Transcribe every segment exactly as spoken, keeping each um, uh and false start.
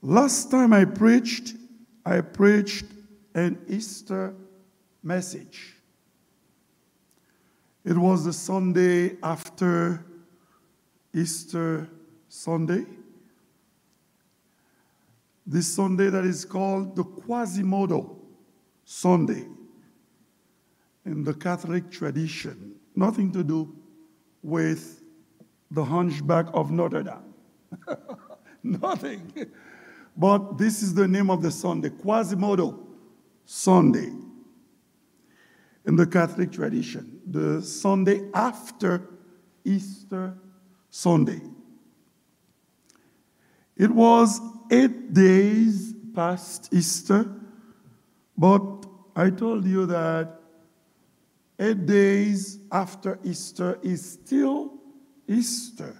Last time I preached, I preached an Easter message. It was the Sunday after Easter Sunday. This Sunday that is called the Quasimodo Sunday in the Catholic tradition. Nothing to do with the Hunchback of Notre Dame. Nothing. But this is the name of the Sunday, Quasimodo Sunday in the Catholic tradition, the Sunday after Easter Sunday. It was eight days past Easter, but I told you that eight days after Easter is still Easter.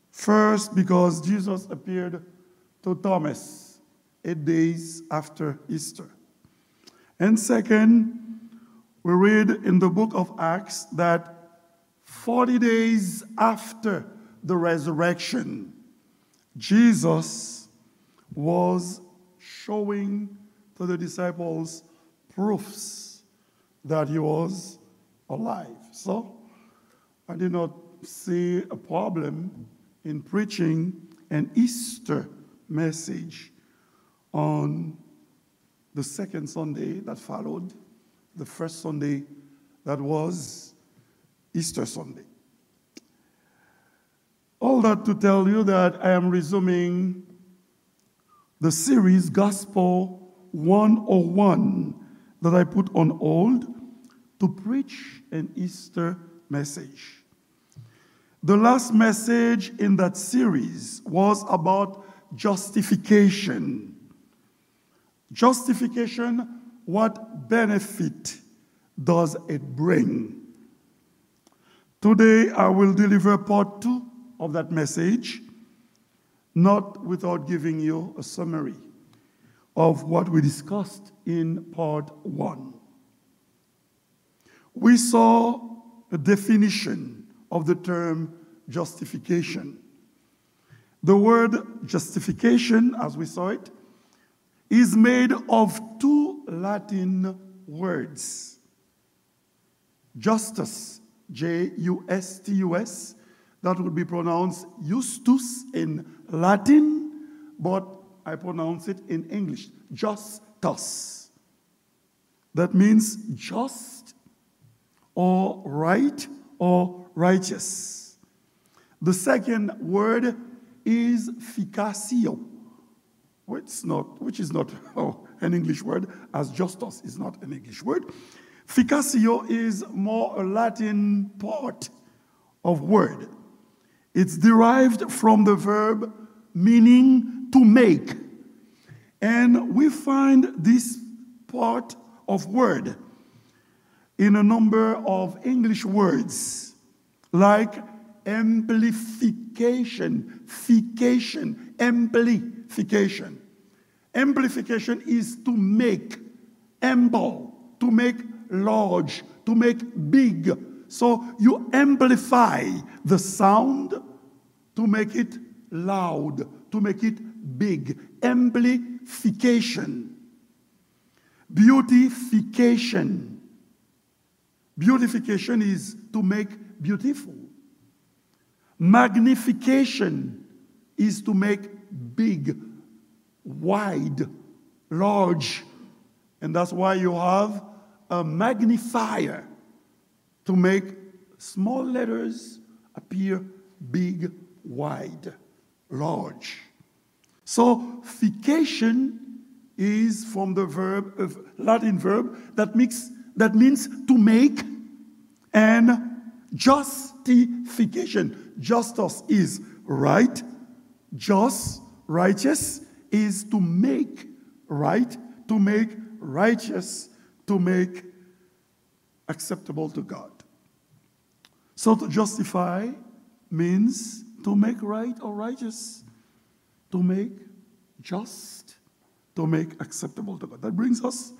First, because Jesus appeared to Thomas eight days after Easter. And second, we read in the book of Acts that forty days after the resurrection, Jesus was showing to the disciples proofs that he was alive. So, I did not see a problem in preaching an Easter message on the second Sunday that followed the first Sunday that was Easter Sunday. All that to tell you that I am resuming the series Gospel one oh one that I put on hold to preach an Easter message. The last message in that series was about justification. Justification, what benefit does it bring? Today, I will deliver part two of that message, not without giving you a summary of what we discussed in part one. We saw a definition of the term justification. The word justification, as we saw it, is made of two Latin words. Justus, J U S T U S, that would be pronounced justus in Latin, but I pronounce it in English, justus. That means just or right or righteous. The second word is ficatio, which is not, which is not oh, an English word, as justus is not an English word. Ficatio is more a Latin part of word. It's derived from the verb meaning to make. And we find this part of word in a number of English words, like amplification, fication, amplification. Amplification is to make ample, to make large, to make big. So you amplify the sound to make it loud, to make it big. Amplification. Beautification. Beautification is to make beautiful. Magnification is to make big, wide, large. And that's why you have a magnifier to make small letters appear big, wide, large. So, fication is from the verb, uh, Latin verb that makes, that means to make, and justification. Justus is right, just, righteous is to make right, to make righteous, to make acceptable to God. So to justify means to make right or righteous, to make just, to make acceptable to God. That brings us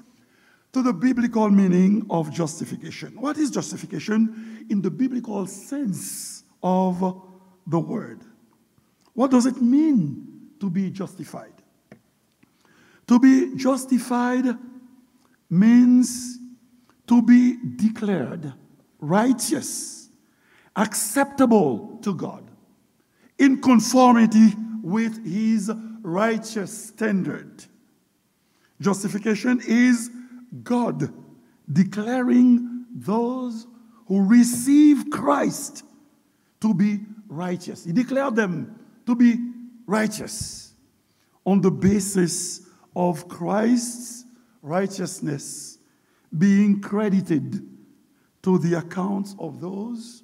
to the biblical meaning of justification. What is justification in the biblical sense of the word? What does it mean to be justified. To be justified means to be declared righteous, acceptable to God, in conformity with his righteous standard. Justification is God declaring those who receive Christ to be righteous. He declared them to be righteous on the basis of Christ's righteousness being credited to the accounts of those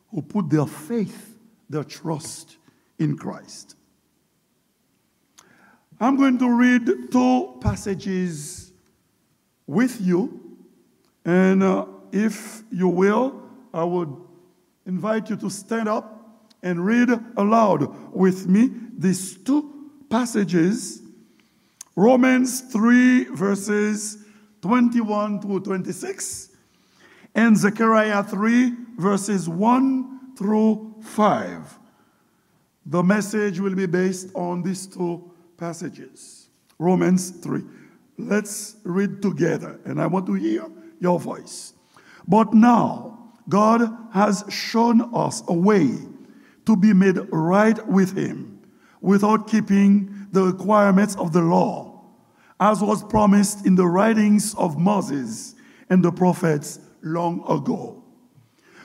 who put their faith, their trust in Christ. I'm going to read two passages with you, and uh, if you will, I would invite you to stand up and read aloud with me these two passages, Romans three, verses twenty-one through twenty-six, and Zechariah three, verses one through five. The message will be based on these two passages. Romans three. Let's read together, and I want to hear your voice. But now, God has shown us a way to be made right with Him without keeping the requirements of the law, as was promised in the writings of Moses and the prophets long ago.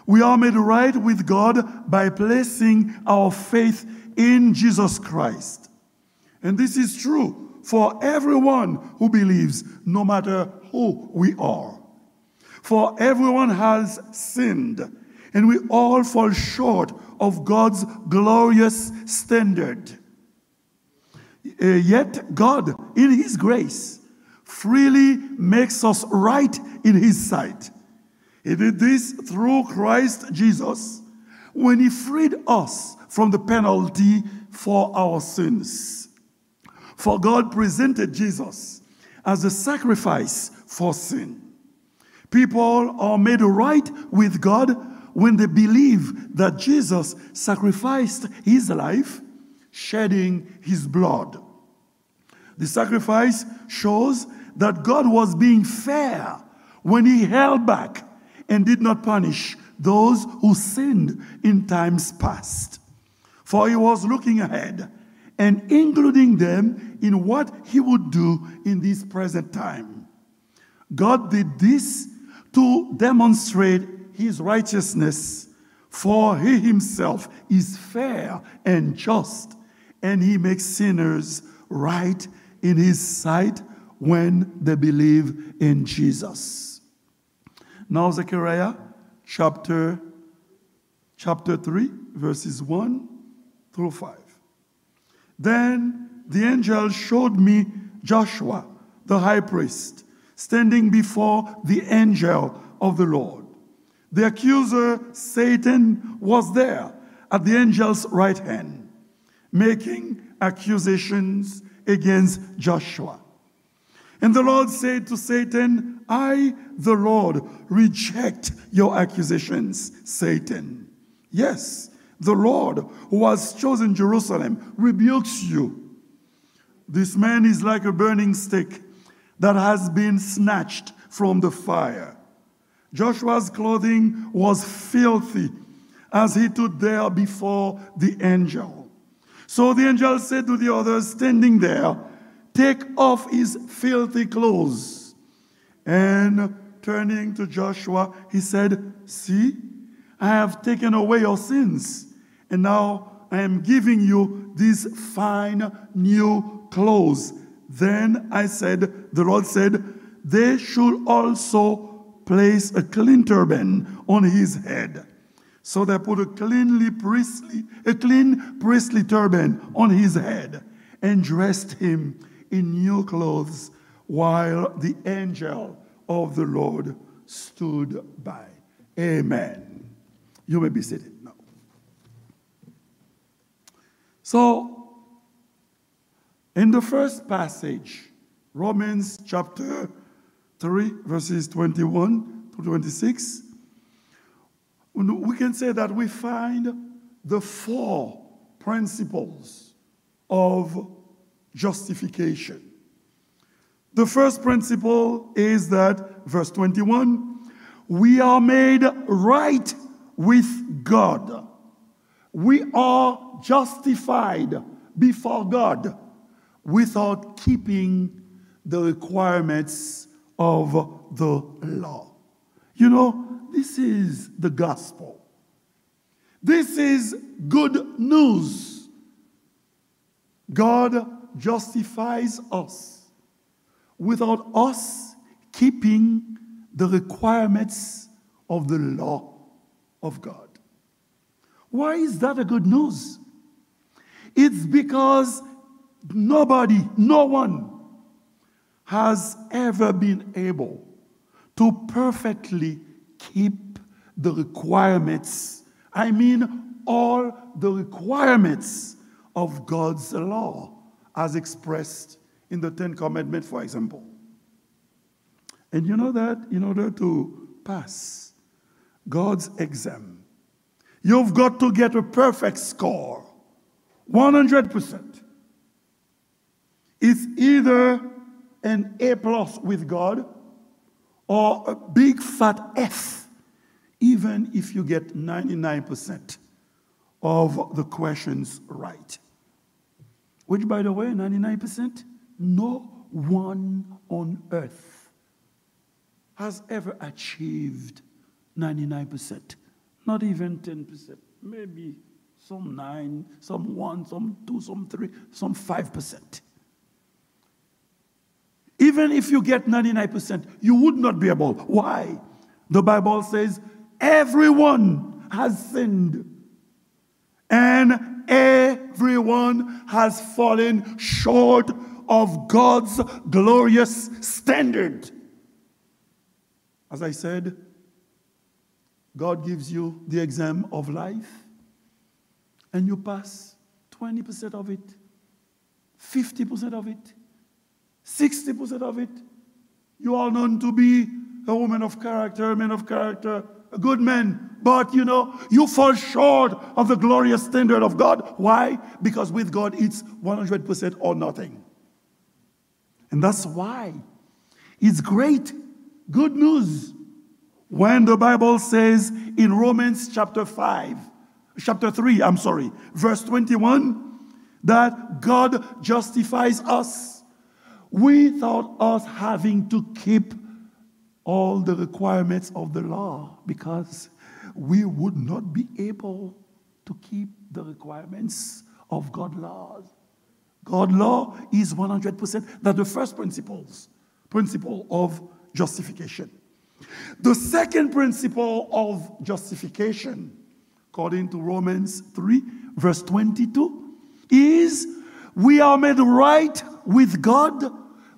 We are made right with God by placing our faith in Jesus Christ. And this is true for everyone who believes, no matter who we are. For everyone has sinned, and we all fall short of God's glorious standard. Eh, yet God, in His grace, freely makes us right in His sight. He did this through Christ Jesus when He freed us from the penalty for our sins. For God presented Jesus as a sacrifice for sin. People are made right with God when they believe that Jesus sacrificed His life, shedding His blood. The sacrifice shows that God was being fair when He held back and did not punish those who sinned in times past. For He was looking ahead and including them in what He would do in this present time. God did this to demonstrate His righteousness, for He Himself is fair and just, and He makes sinners right in His sight when they believe in Jesus. Now, Zechariah chapter, chapter three, verses one through five. Then the angel showed me Joshua, the high priest, standing before the angel of the Lord. The accuser, Satan, was there at the angel's right hand, making accusations against Joshua. And the Lord said to Satan, I, the Lord, reject your accusations, Satan. Yes, the Lord, who has chosen Jerusalem, rebukes you. This man is like a burning stick that has been snatched from the fire. Joshua's clothing was filthy as he stood there before the angel. So the angel said to the others standing there, take off his filthy clothes. And turning to Joshua, he said, see, I have taken away your sins, and now I am giving you these fine new clothes. Then I said, the Lord said, they should also place a clean turban on his head. So they put a cleanly priestly, a clean priestly turban on his head and dressed him in new clothes while the angel of the Lord stood by. Amen. You may be seated now. So, in the first passage, Romans chapter three, verses twenty-one to twenty-six, we can say that we find the four principles of justification. The first principle is that, verse twenty-one, we are made right with God. We are justified before God without keeping the requirements of the law. You know, this is the gospel. This is good news. God justifies us without us keeping the requirements of the law of God. Why is that a good news? It's because nobody, no one has ever been able to perfectly keep the requirements. I mean, all the requirements of God's law as expressed in the Ten Commandments, for example. And you know that in order to pass God's exam, you've got to get a perfect score, one hundred percent. It's either an A plus with God or a big fat F, even if you get ninety-nine percent of the questions right. Which, by the way, ninety-nine percent, no one on earth has ever achieved ninety-nine percent. Not even ten percent. Maybe some nine, some one, some two, some three, some five percent. Even if you get ninety-nine percent, you would not be able. Why? The Bible says, "Everyone has sinned and everyone has fallen short of God's glorious standard." As I said, God gives you the exam of life, and you pass twenty percent of it, fifty percent of it, sixty percent of it. You are known to be a woman of character, a man of character, a good man, but you know, you fall short of the glorious standard of God. Why? Because with God, it's one hundred percent or nothing. And that's why it's great, good news, when the Bible says in Romans chapter five, chapter three, I'm sorry, verse twenty-one, that God justifies us without us having to keep all the requirements of the law, because we would not be able to keep the requirements of God's laws. God law is one hundred percent. That's the first principles, principle of justification. The second principle of justification, according to Romans three, verse twenty-two, is we are made right with God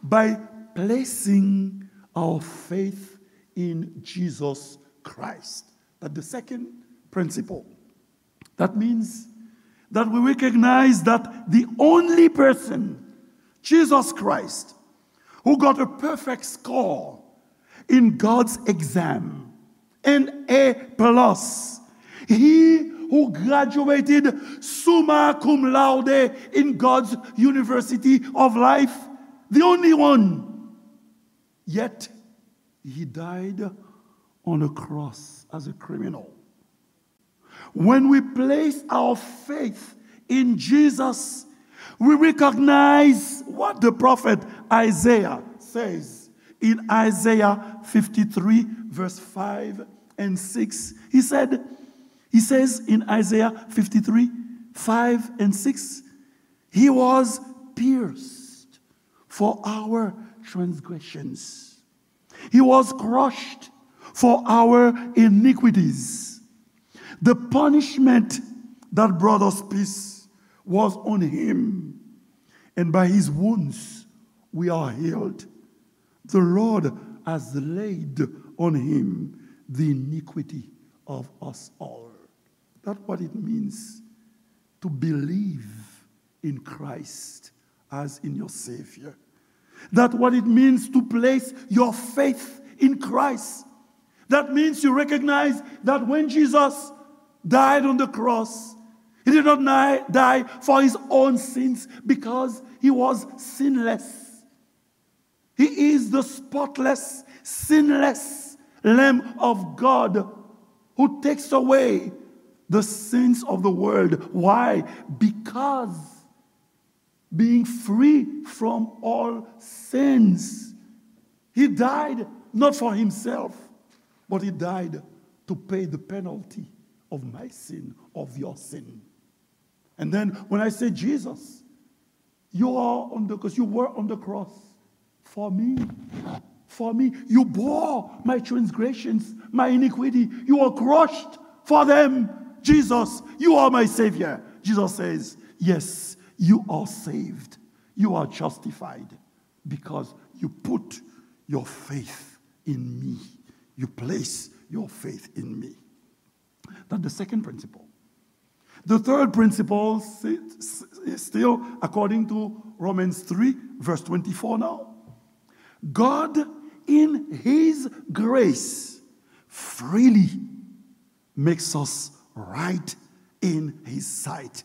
by placing our faith in Jesus Christ. That's the second principle. That means that we recognize that the only person, Jesus Christ, who got a perfect score in God's exam, an A plus, he who graduated summa cum laude in God's university of life, the only one. Yet, he died on a cross as a criminal. When we place our faith in Jesus, we recognize what the prophet Isaiah says in Isaiah fifty-three, verse five and six. He said, he says in Isaiah fifty-three, five and six, "He was pierced for our transgressions. He was crushed for our iniquities. The punishment that brought us peace was on him, and by his wounds we are healed. The Lord has laid on him the iniquity of us all." That's what it means to believe in Christ as in your Savior. That's what it means to place your faith in Christ. That means you recognize that when Jesus died on the cross, He did not ni- die for his own sins because he was sinless. He is the spotless, sinless Lamb of God who takes away the sins of the world. Why? Because being free from all sins, he died not for himself, but he died to pay the penalty of my sin, of your sin. And then when I say, Jesus, you are on the cross, you were on the cross for me. For me, you bore my transgressions, my iniquity. You were crushed for them. Jesus, you are my Savior. Jesus says, yes, you are saved. You are justified because you put your faith in me. You place your faith in me. That's the second principle. The third principle, si- s- is still according to Romans three, verse twenty-four now. God, in his grace, freely makes us right in his sight.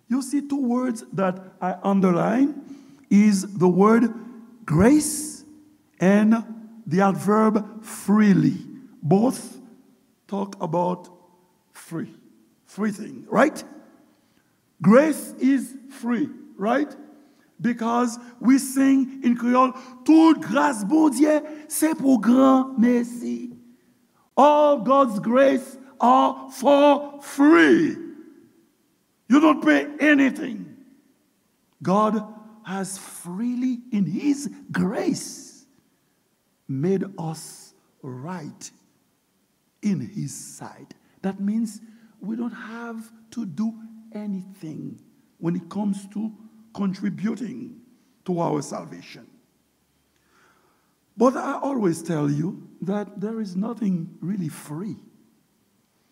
You see, two words that I underline is the word grace and the adverb freely. Both talk about free. Free thing, right? Grace is free, right? Because we sing in Creole, tout gras Bondye se pou granmesi. All God's grace are for free. You don't pay anything. God has freely, in his grace, made us right in his sight. That means we don't have to do anything when it comes to contributing to our salvation. But I always tell you that there is nothing really free.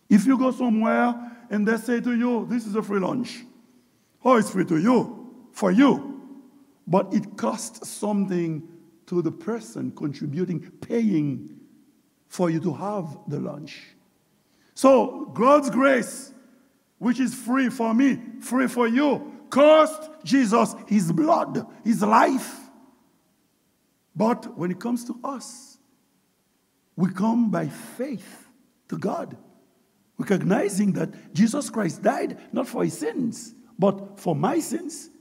If you go somewhere and they say to you, this is a free lunch, oh, it's free to you, for you. But it costs something to the person contributing, paying for you to have the lunch. So, God's grace, which is free for me, free for you, cost Jesus his blood, his life. But when it comes to us, we come by faith to God, recognizing that Jesus Christ died not for his sins, but for my sins.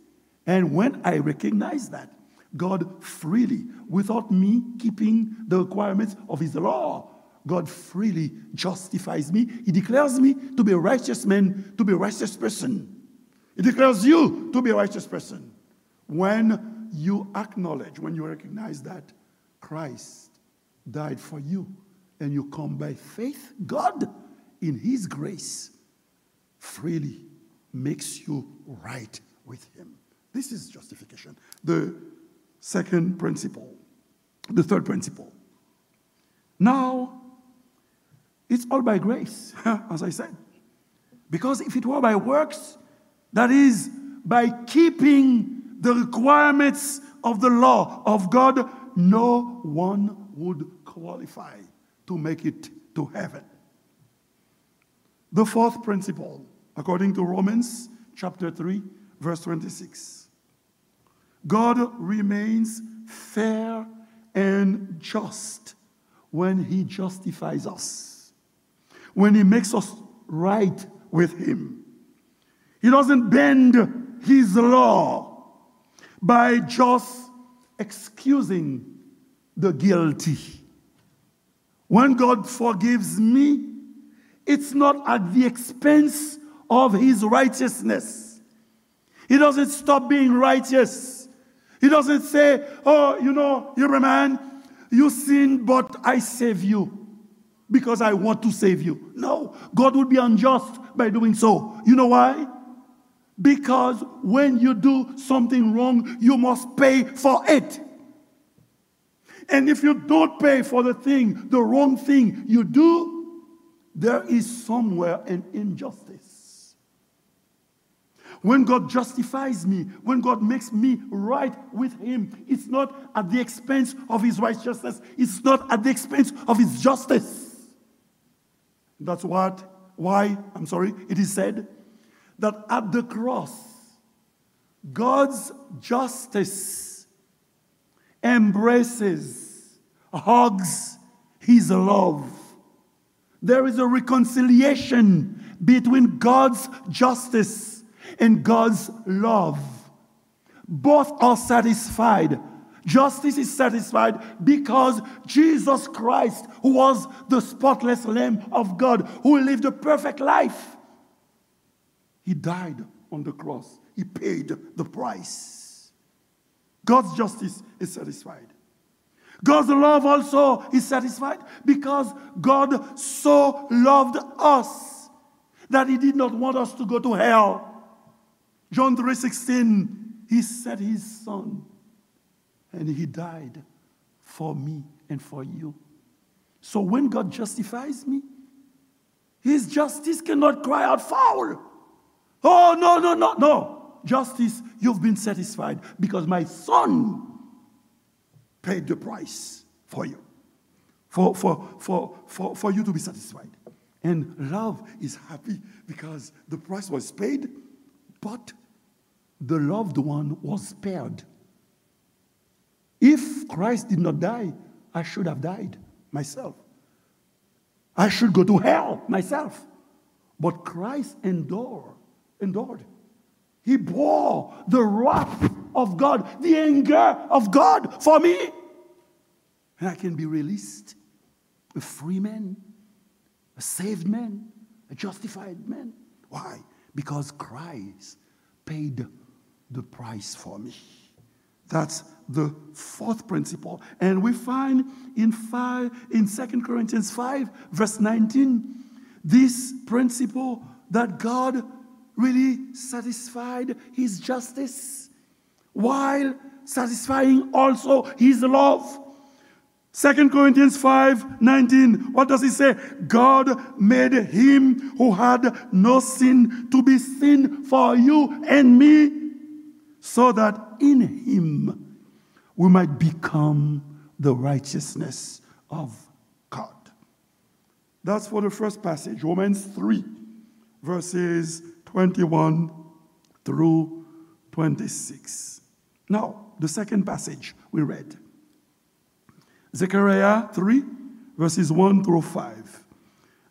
And when I recognize that, God freely, without me keeping the requirements of his law, God freely justifies me. He declares me to be a righteous man, to be a righteous person. He declares you to be a righteous person. When you acknowledge, when you recognize that Christ died for you, and you come by faith, God, in his grace, freely makes you right with him. This is justification. The second principle, the third principle. Now, it's all by grace, as I said. Because if it were by works, that is, by keeping the requirements of the law of God, no one would qualify to make it to heaven. The fourth principle, according to Romans chapter three, verse twenty-six. God remains fair and just when he justifies us, when he makes us right with him. He doesn't bend his law by just excusing the guilty. When God forgives me, it's not at the expense of his righteousness. He doesn't stop being righteous. He doesn't say, oh, you know, Hebrew man, you sin, but I save you because I want to save you. No, God would be unjust by doing so. You know why? Because when you do something wrong, you must pay for it. And if you don't pay for the thing, the wrong thing you do, there is somewhere an injustice. When God justifies me, when God makes me right with him, it's not at the expense of his righteousness, it's not at the expense of his justice. That's what, why, I'm sorry, it is said, that at the cross, God's justice embraces, hugs his love. There is a reconciliation between God's justice and God's love. Both are satisfied. Justice is satisfied because Jesus Christ, who was the spotless Lamb of God, who lived a perfect life, he died on the cross. He paid the price. God's justice is satisfied. God's love also is satisfied because God so loved us that he did not want us to go to hell. John three sixteen, he sent his son and he died for me and for you. So when God justifies me, his justice cannot cry out, "Foul! Oh, no, no, no, no! Justice, you've been satisfied because my son paid the price for you, for, for, for, for, for you to be satisfied." And love is happy because the price was paid, but the loved one was spared. If Christ did not die, I should have died myself. I should go to hell myself. But Christ endured, endured. He bore the wrath of God, the anger of God for me. And I can be released, a free man, a saved man, a justified man. Why? Because Christ paid the price for me. That's the fourth principle. And we find in five, in Second Corinthians five, verse nineteen, this principle that God really satisfied his justice while satisfying also his love. Second Corinthians five nineteen, what does he say? God made him who had no sin to be sin for you and me, so that in him we might become the righteousness of God. That's for the first passage, Romans three, verses twenty-one through twenty-six. Now, the second passage we read, Zechariah three, verses one through five.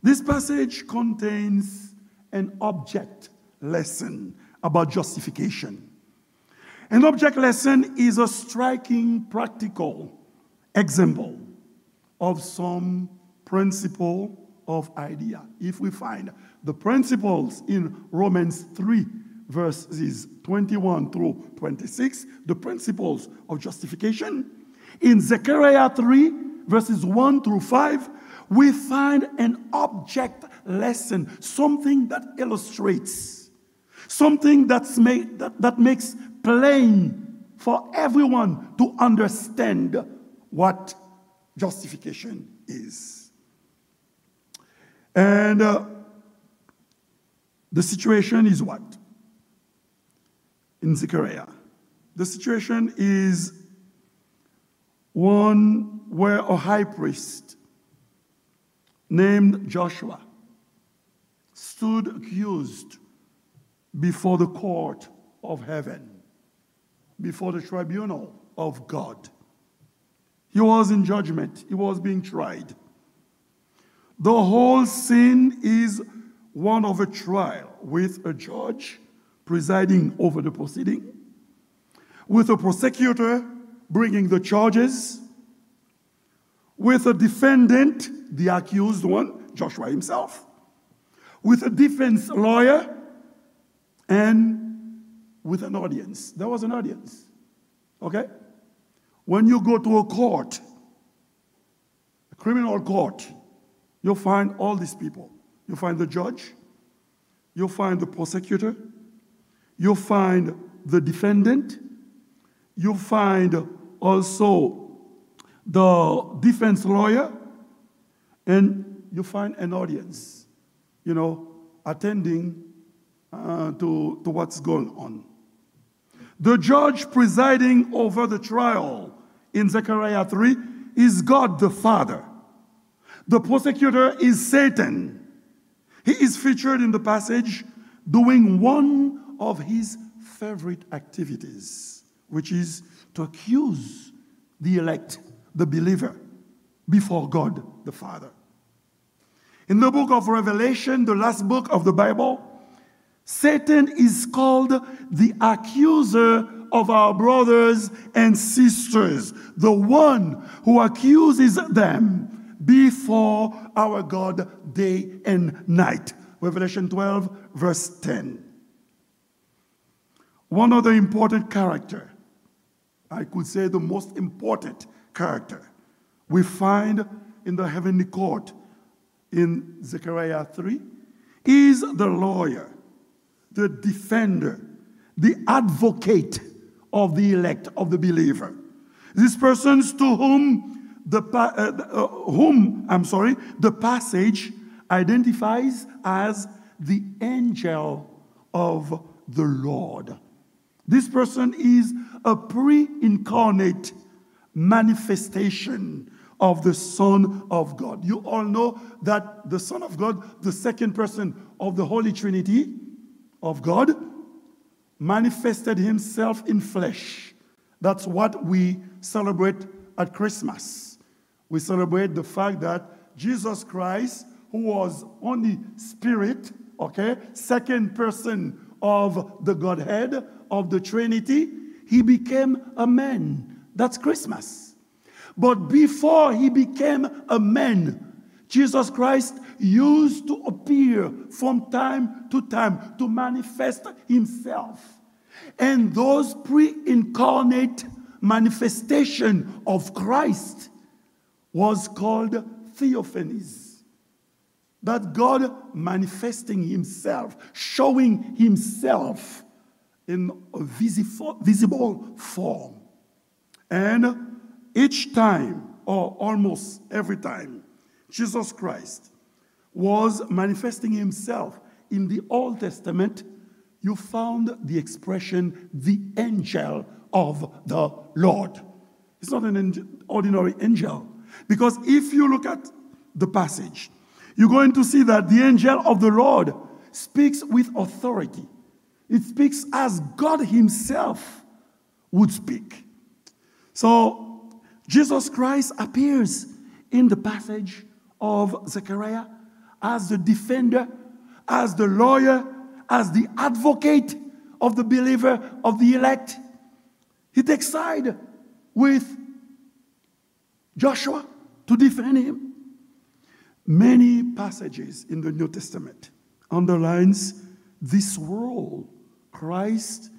This passage contains an object lesson about justification. An object lesson is a striking practical example of some principle of idea. If we find the principles in Romans three, verses twenty-one through twenty-six, the principles of justification, in Zechariah three, verses one through five, we find an object lesson, something that illustrates, something that's ma-, that, that makes plain for everyone to understand what justification is. And, uh, the situation is what? In Zechariah. The situation is one where a high priest named Joshua stood accused before the court of heaven, before the tribunal of God. He was in judgment. He was being tried. The whole scene is one of a trial with a judge presiding over the proceeding, with a prosecutor bringing the charges, with a defendant, the accused one, Joshua himself, with a defense lawyer, and with an audience. There was an audience. Okay? When you go to a court, a criminal court, you'll find all these people. You'll find the judge, you'll find the prosecutor, you'll find the defendant, you'll find also the defense lawyer, and you'll find an audience, you know, attending, uh, to, to what's going on. The judge presiding over the trial in Zechariah three is God the Father. The prosecutor is Satan. He is featured in the passage doing one of his favorite activities, which is to accuse the elect, the believer, before God the Father. In the book of Revelation, the last book of the Bible, Satan is called the accuser of our brothers and sisters, the one who accuses them before our God day and night. Revelation twelve, verse ten. One other important character, I could say the most important character, we find in the heavenly court in Zechariah three is the lawyer, the defender, the advocate of the elect, of the believer. These persons to whom the pa- uh, uh, whom, I'm sorry, the passage identifies as the angel of the Lord. This person is a pre-incarnate manifestation of the Son of God. You all know that the Son of God, the second person of the Holy Trinity of God, manifested himself in flesh. That's what we celebrate at Christmas. We celebrate the fact that Jesus Christ, who was only spirit, okay, second person of the Godhead, of the Trinity, he became a man. That's Christmas. But before he became a man, Jesus Christ used to appear from time to time to manifest himself. And those pre-incarnate manifestation of Christ was called theophanies. That God manifesting himself, showing himself in a visi- visible form. And each time, or almost every time, Jesus Christ was manifesting himself in the Old Testament, you found the expression the angel of the Lord. It's not an angel, ordinary angel. Because if you look at the passage, you're going to see that the angel of the Lord speaks with authority. It speaks as God himself would speak. So, Jesus Christ appears in the passage of Zechariah as the defender, as the lawyer, as the advocate of the believer, of the elect. He takes side with Joshua to defend him. Many passages in the New Testament underlines this role Christ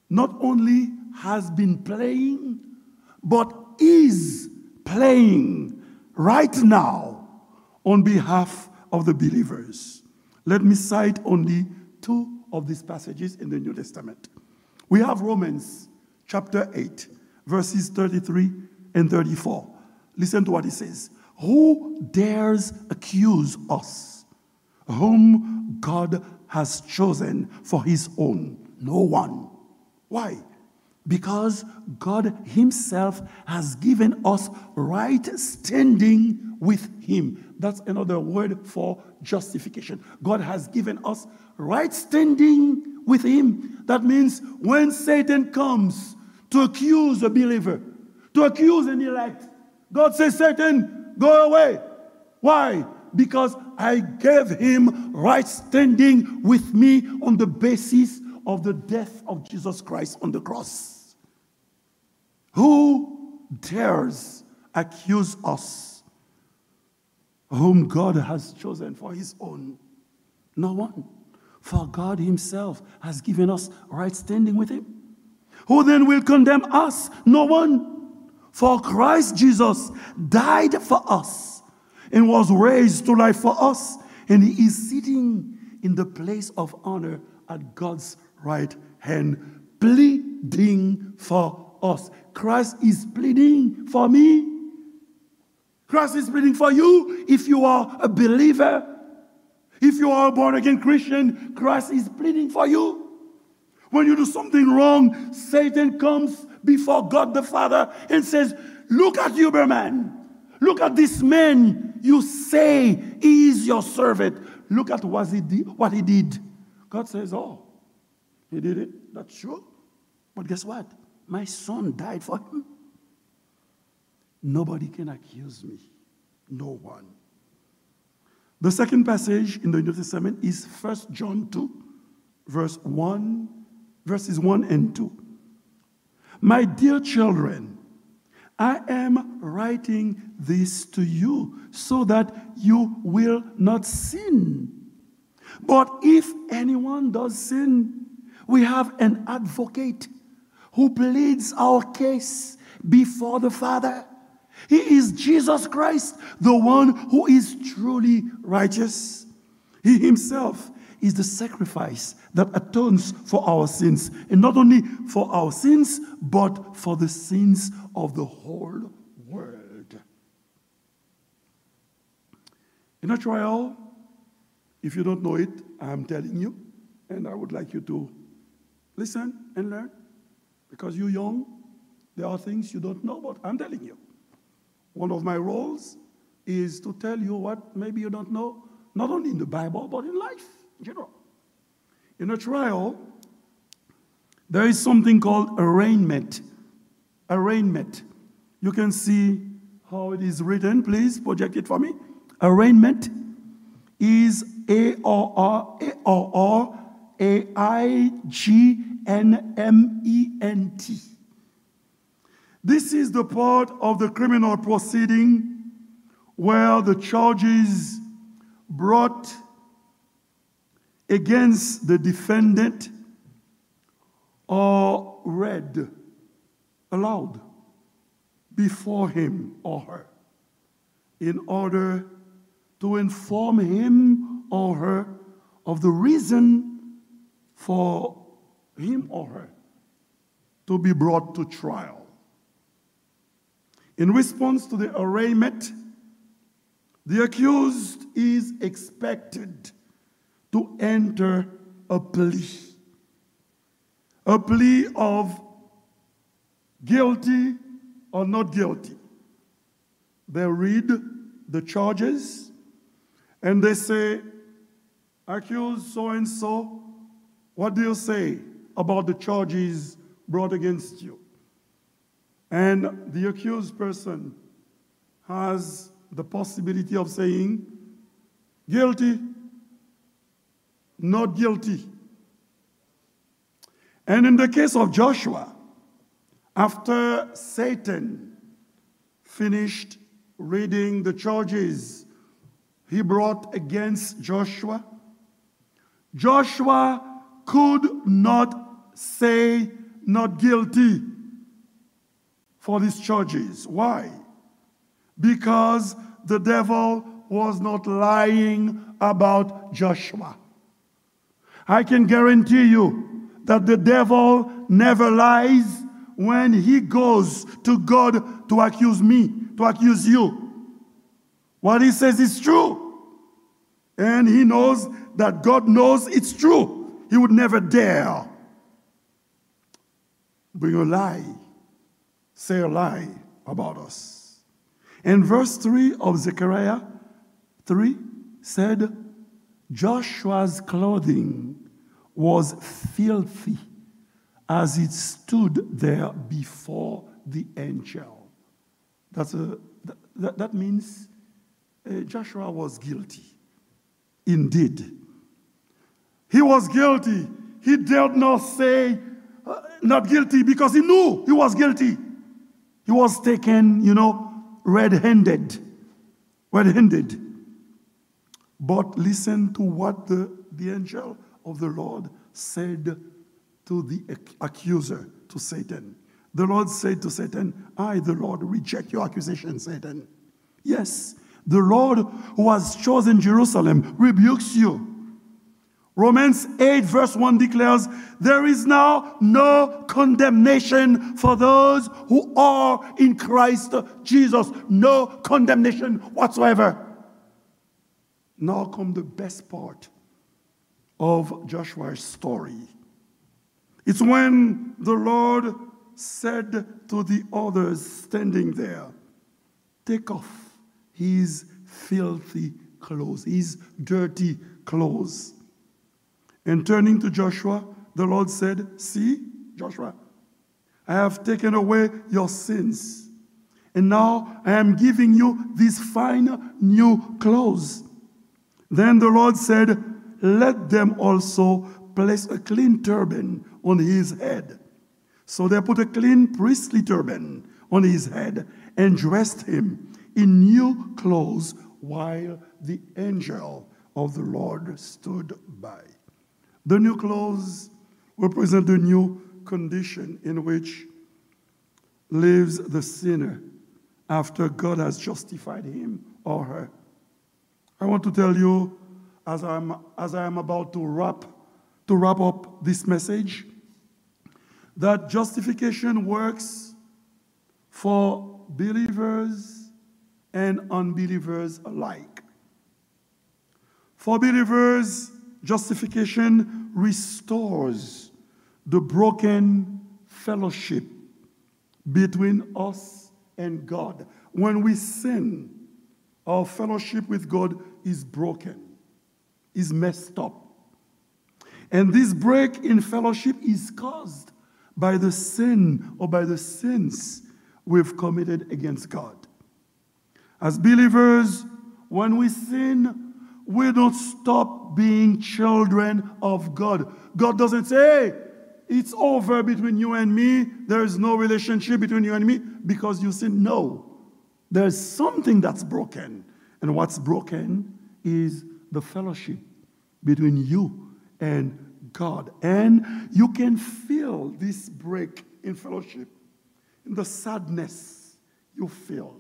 not only has been playing, but is playing right now on behalf of the believers. Let me cite only two of these passages in the New Testament. We have Romans chapter eight, verses thirty-three and thirty-four. Listen to what it says. Who dares accuse us whom God has chosen for his own? No one. Why? Because God himself has given us right standing with him. That's another word for justification. God has given us right standing with him. That means when Satan comes to accuse a believer, to accuse an elect, God says, Satan, go away. Why? Because I gave him right standing with me on the basis of the death of Jesus Christ on the cross. Who dares accuse us whom God has chosen for his own? No one. For God himself has given us right standing with him. Who then will condemn us? No one. For Christ Jesus died for us and was raised to life for us, and he is sitting in the place of honor at God's right hand, pleading for us. Christ is pleading for me. Christ is pleading for you if you are a believer. If you are a born again Christian, Christ is pleading for you. When you do something wrong, Satan comes before God the Father and says, look at Huberman. Look at this man you say he is your servant. Look at what he did. What he did. God says, "Oh, he did it. That's true. But guess what? My son died for him." Nobody can accuse me. No one. The second passage in the New Testament is First John two, verse one, verses one and two. "My dear children, I am writing this to you so that you will not sin. But if anyone does sin, we have an advocate who pleads our case before the Father. He is Jesus Christ, the one who is truly righteous. He himself is the sacrifice that atones for our sins, and not only for our sins, but for the sins of the whole world." In a trial, if you don't know it, I'm telling you, and I would like you to listen and learn, because you're young, there are things you don't know, but I'm telling you. One of my roles is to tell you what maybe you don't know, not only in the Bible, but in life in general. In a trial, there is something called arraignment. Arraignment. You can see how it is written. Please project it for me. Arraignment is A R R, A R R A I G N M E N T. This is the part of the criminal proceeding where the charges brought against the defendant are read aloud before him or her in order to inform him or her of the reason for him or her to be brought to trial. In response to the arraignment, the accused is expected to enter a plea, a plea of guilty or not guilty. They read the charges and they say, "Accused so and so, what do you say about the charges brought against you?" And the accused person has the possibility of saying, "Guilty, not guilty." And in the case of Joshua, after Satan finished reading the charges he brought against Joshua, Joshua could not say not guilty for these charges. Why? Because the devil was not lying about Joshua. I can guarantee you that the devil never lies when he goes to God to accuse me, to accuse you. What he says is true. And he knows that God knows it's true. He would never dare bring a lie, say a lie about us. And verse three of Zechariah three said, "Joshua's clothing was filthy as it stood there before the angel." That's a, that, that means, uh, Joshua was guilty. Indeed. He was guilty. He dared not say, uh, not guilty, because he knew he was guilty. He was taken, you know, red-handed. Red-handed. But listen to what the, the angel of the Lord said to the ac-, accuser, to Satan. The Lord said to Satan, "I, the Lord, reject your accusation, Satan. Yes, the Lord who has chosen Jerusalem rebukes you." Romans eight verse one declares, "There is now no condemnation for those who are in Christ Jesus." No condemnation whatsoever. Now come the best part of Joshua's story. It's when the Lord said to the others standing there, "Take off his filthy clothes, his dirty clothes." And turning to Joshua, the Lord said, "See, Joshua, I have taken away your sins, and now I am giving you these fine new clothes." Then the Lord said, "Let them also place a clean turban on his head." So they put a clean priestly turban on his head and dressed him in new clothes while the angel of the Lord stood by. The new clothes represent the new condition in which lives the sinner after God has justified him or her. I want to tell you, as I'm, as I am about to wrap, to wrap up this message, that justification works for believers and unbelievers alike. For believers, justification restores the broken fellowship between us and God. When we sin, our fellowship with God is broken, is messed up. And this break in fellowship is caused by the sin or by the sins we've committed against God. As believers, when we sin, we don't stop being children of God. God doesn't say, "Hey, it's over between you and me. There is no relationship between you and me because you sin." No. There's something that's broken. And what's broken is the fellowship between you and God. And you can feel this break in fellowship, in the sadness you feel,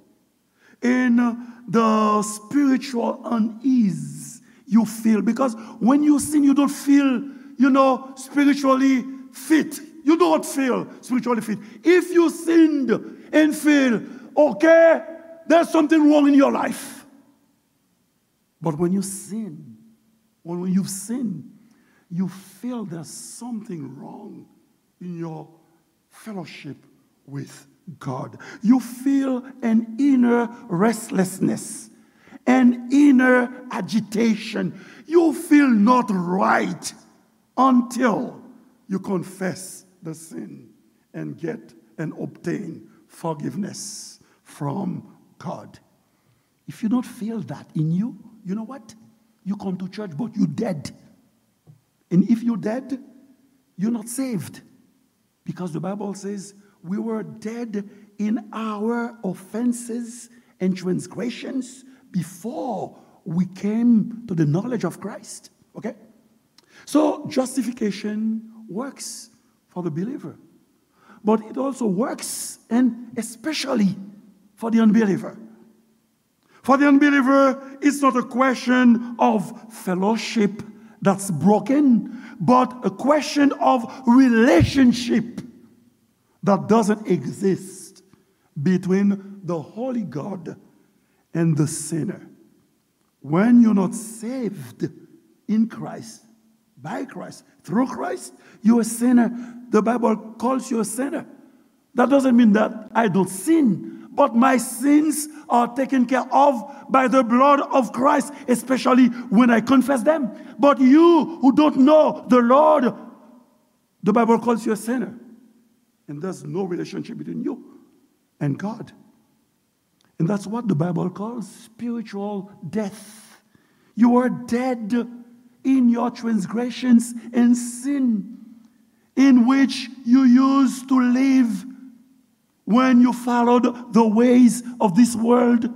in the spiritual unease you feel. Because when you sin, you don't feel, you know, spiritually fit. You don't feel spiritually fit. If you sinned and feel, okay, there's something wrong in your life. But when you sin, when you've sinned, you feel there's something wrong in your fellowship with God. You feel an inner restlessness, an inner agitation. You feel not right until you confess the sin and get and obtain forgiveness from God. If you don't feel that in you, you know what? You come to church, but you dead. And if you dead, you're not saved. Because the Bible says we were dead in our offenses and transgressions before we came to the knowledge of Christ. Okay? So justification works for the believer, but it also works and especially for the unbeliever. For the unbeliever, it's not a question of fellowship that's broken, but a question of relationship that doesn't exist between the holy God and the sinner. When you're not saved in Christ, by Christ, through Christ, you're a sinner. The Bible calls you a sinner. That doesn't mean that I don't sin, but my sins are taken care of by the blood of Christ, especially when I confess them. But you who don't know the Lord, the Bible calls you a sinner. And there's no relationship between you and God. And that's what the Bible calls spiritual death. You are dead in your transgressions and sin, in which you used to live when you followed the ways of this world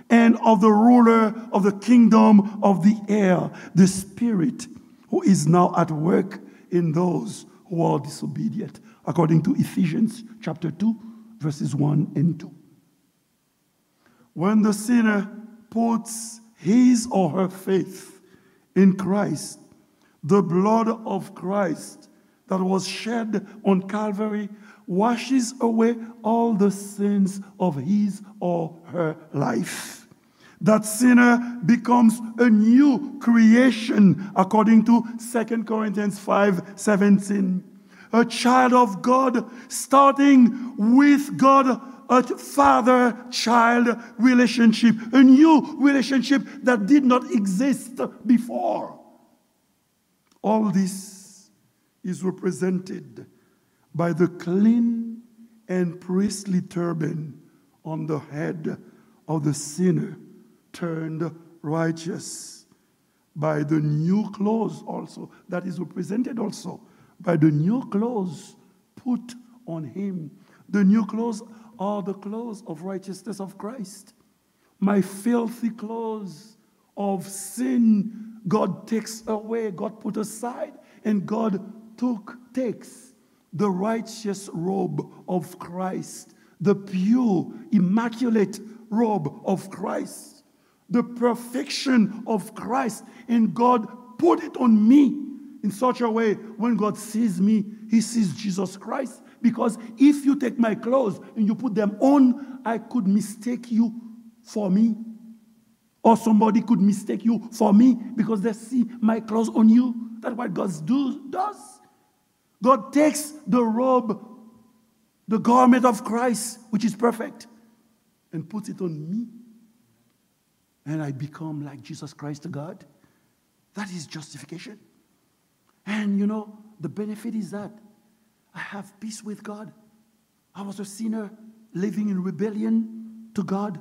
and of the ruler of the kingdom of the air, the spirit who is now at work in those who are disobedient, according to Ephesians chapter two, verses one and two. When the sinner puts his or her faith in Christ, the blood of Christ that was shed on Calvary washes away all the sins of his or her life. That sinner becomes a new creation, according to Second Corinthians five seventeen. A child of God, starting with God, a father-child relationship, a new relationship that did not exist before. All this is represented by the clean and priestly turban on the head of the sinner turned righteous, by the new clothes also, that is represented also by the new clothes put on him. The new clothes are the clothes of righteousness of Christ. My filthy clothes of sin, God takes away, God put aside, and God took, takes the righteous robe of Christ, the pure, immaculate robe of Christ, the perfection of Christ, and God put it on me in such a way when God sees me, he sees Jesus Christ. Because if you take my clothes and you put them on, I could mistake you for me. Or somebody could mistake you for me because they see my clothes on you. That's what God do, does. God takes the robe, the garment of Christ, which is perfect, and puts it on me. And I become like Jesus Christ to God. That is justification. And you know, the benefit is that I have peace with God. I was a sinner living in rebellion to God.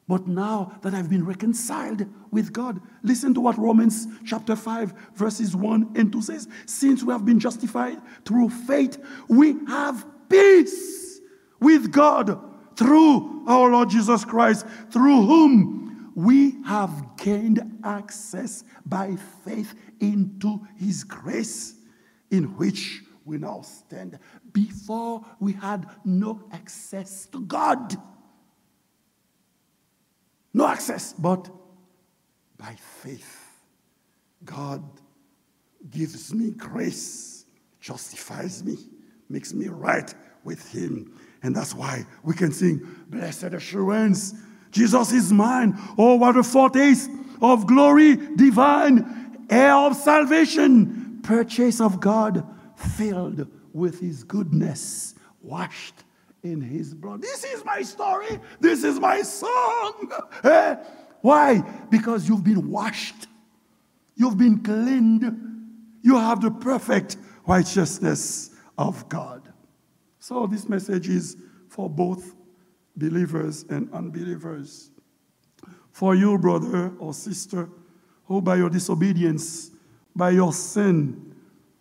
But now that I've been reconciled with God, listen to what Romans chapter five, verses one and two says. Since we have been justified through faith, we have peace with God through our Lord Jesus Christ, through whom we have gained access by faith into his grace, in which we now stand. Before, we had no access to God. No access, but by faith, God gives me grace, justifies me, makes me right with him. And that's why we can sing, "Blessed assurance, Jesus is mine. Oh, what a foretaste of glory divine, heir of salvation, purchase of God, filled with his goodness, washed in his blood." This is my story. This is my song. Eh? Why? Because you've been washed. You've been cleaned. You have the perfect righteousness of God. So this message is for both believers and unbelievers. For you, brother or sister, who by your disobedience, by your sin,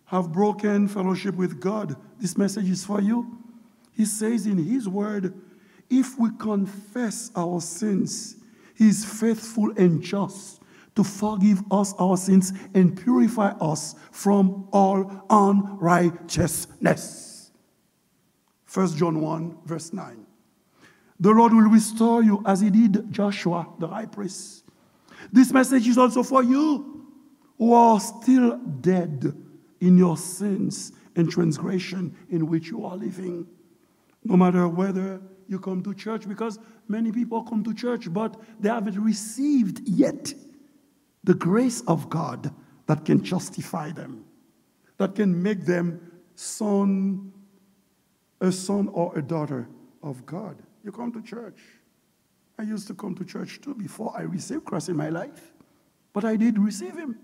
have broken fellowship with God, this message is for you. He says in his word, if we confess our sins, he is faithful and just to forgive us our sins and purify us from all unrighteousness. First John one, verse nine. The Lord will restore you as he did Joshua, the high priest. This message is also for you who are still dead in your sins and transgression in which you are living. No matter whether you come to church, because many people come to church, but they haven't received yet the grace of God that can justify them, that can make them son, a son or a daughter of God. You come to church. I used to come to church too before I received Christ in my life. But I did receive him.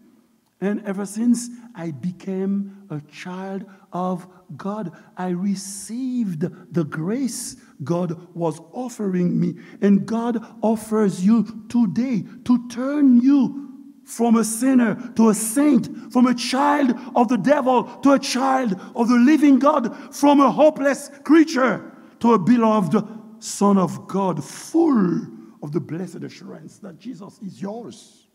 And ever since I became a child of God, I received the grace God was offering me. And God offers you today to turn you from a sinner to a saint, from a child of the devil to a child of the living God, from a hopeless creature to a beloved son of God, full of the blessed assurance that Jesus is yours,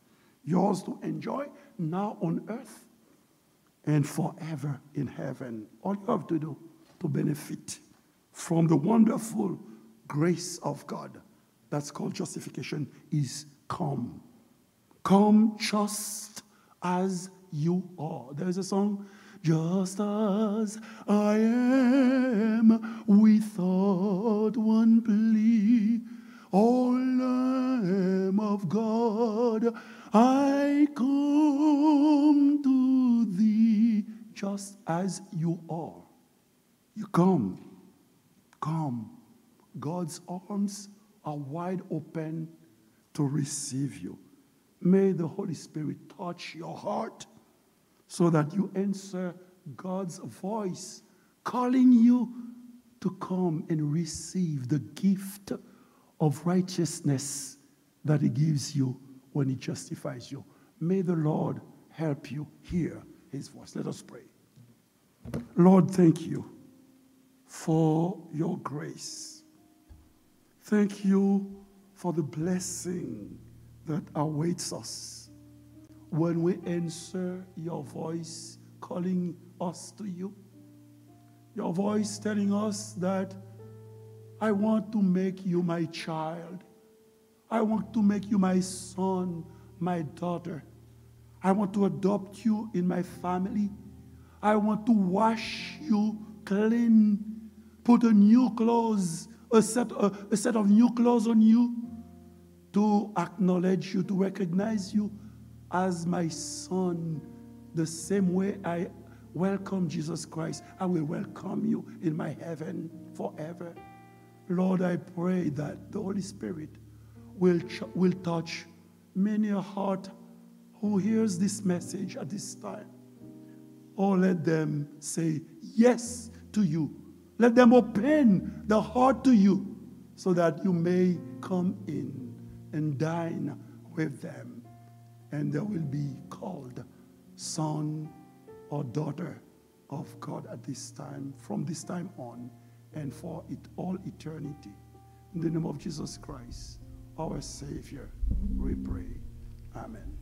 yours to enjoy now on earth and forever in heaven. All you have to do to benefit from the wonderful grace of God that's called justification is come. Come just as you are. There is a song, "Just as I am, without one plea, O Lamb of God, I come to thee." Just as you are. You come. Come. God's arms are wide open to receive you. May the Holy Spirit touch your heart. so that you answer God's voice calling you to come and receive the gift of righteousness that He gives you when He justifies you. May the Lord help you hear His voice. Let us pray. Lord, thank you for your grace. Thank you for the blessing that awaits us when we answer your voice calling us to you. Your voice telling us that I want to make you my child. I want to make you my son, my daughter. I want to adopt you in my family. I want to wash you clean, put a new clothes, a set, a, a set of new clothes on you, to acknowledge you, to recognize you as my son. The same way I welcome Jesus Christ, I will welcome you in my heaven forever. Lord, I pray that the Holy Spirit will, ch- will touch many a heart who hears this message at this time. Oh, let them say yes to you. Let them open the heart to you so that you may come in and dine with them. And they will be called son or daughter of God at this time, from this time on, and for it all eternity. In the name of Jesus Christ, our Savior, we pray. Amen.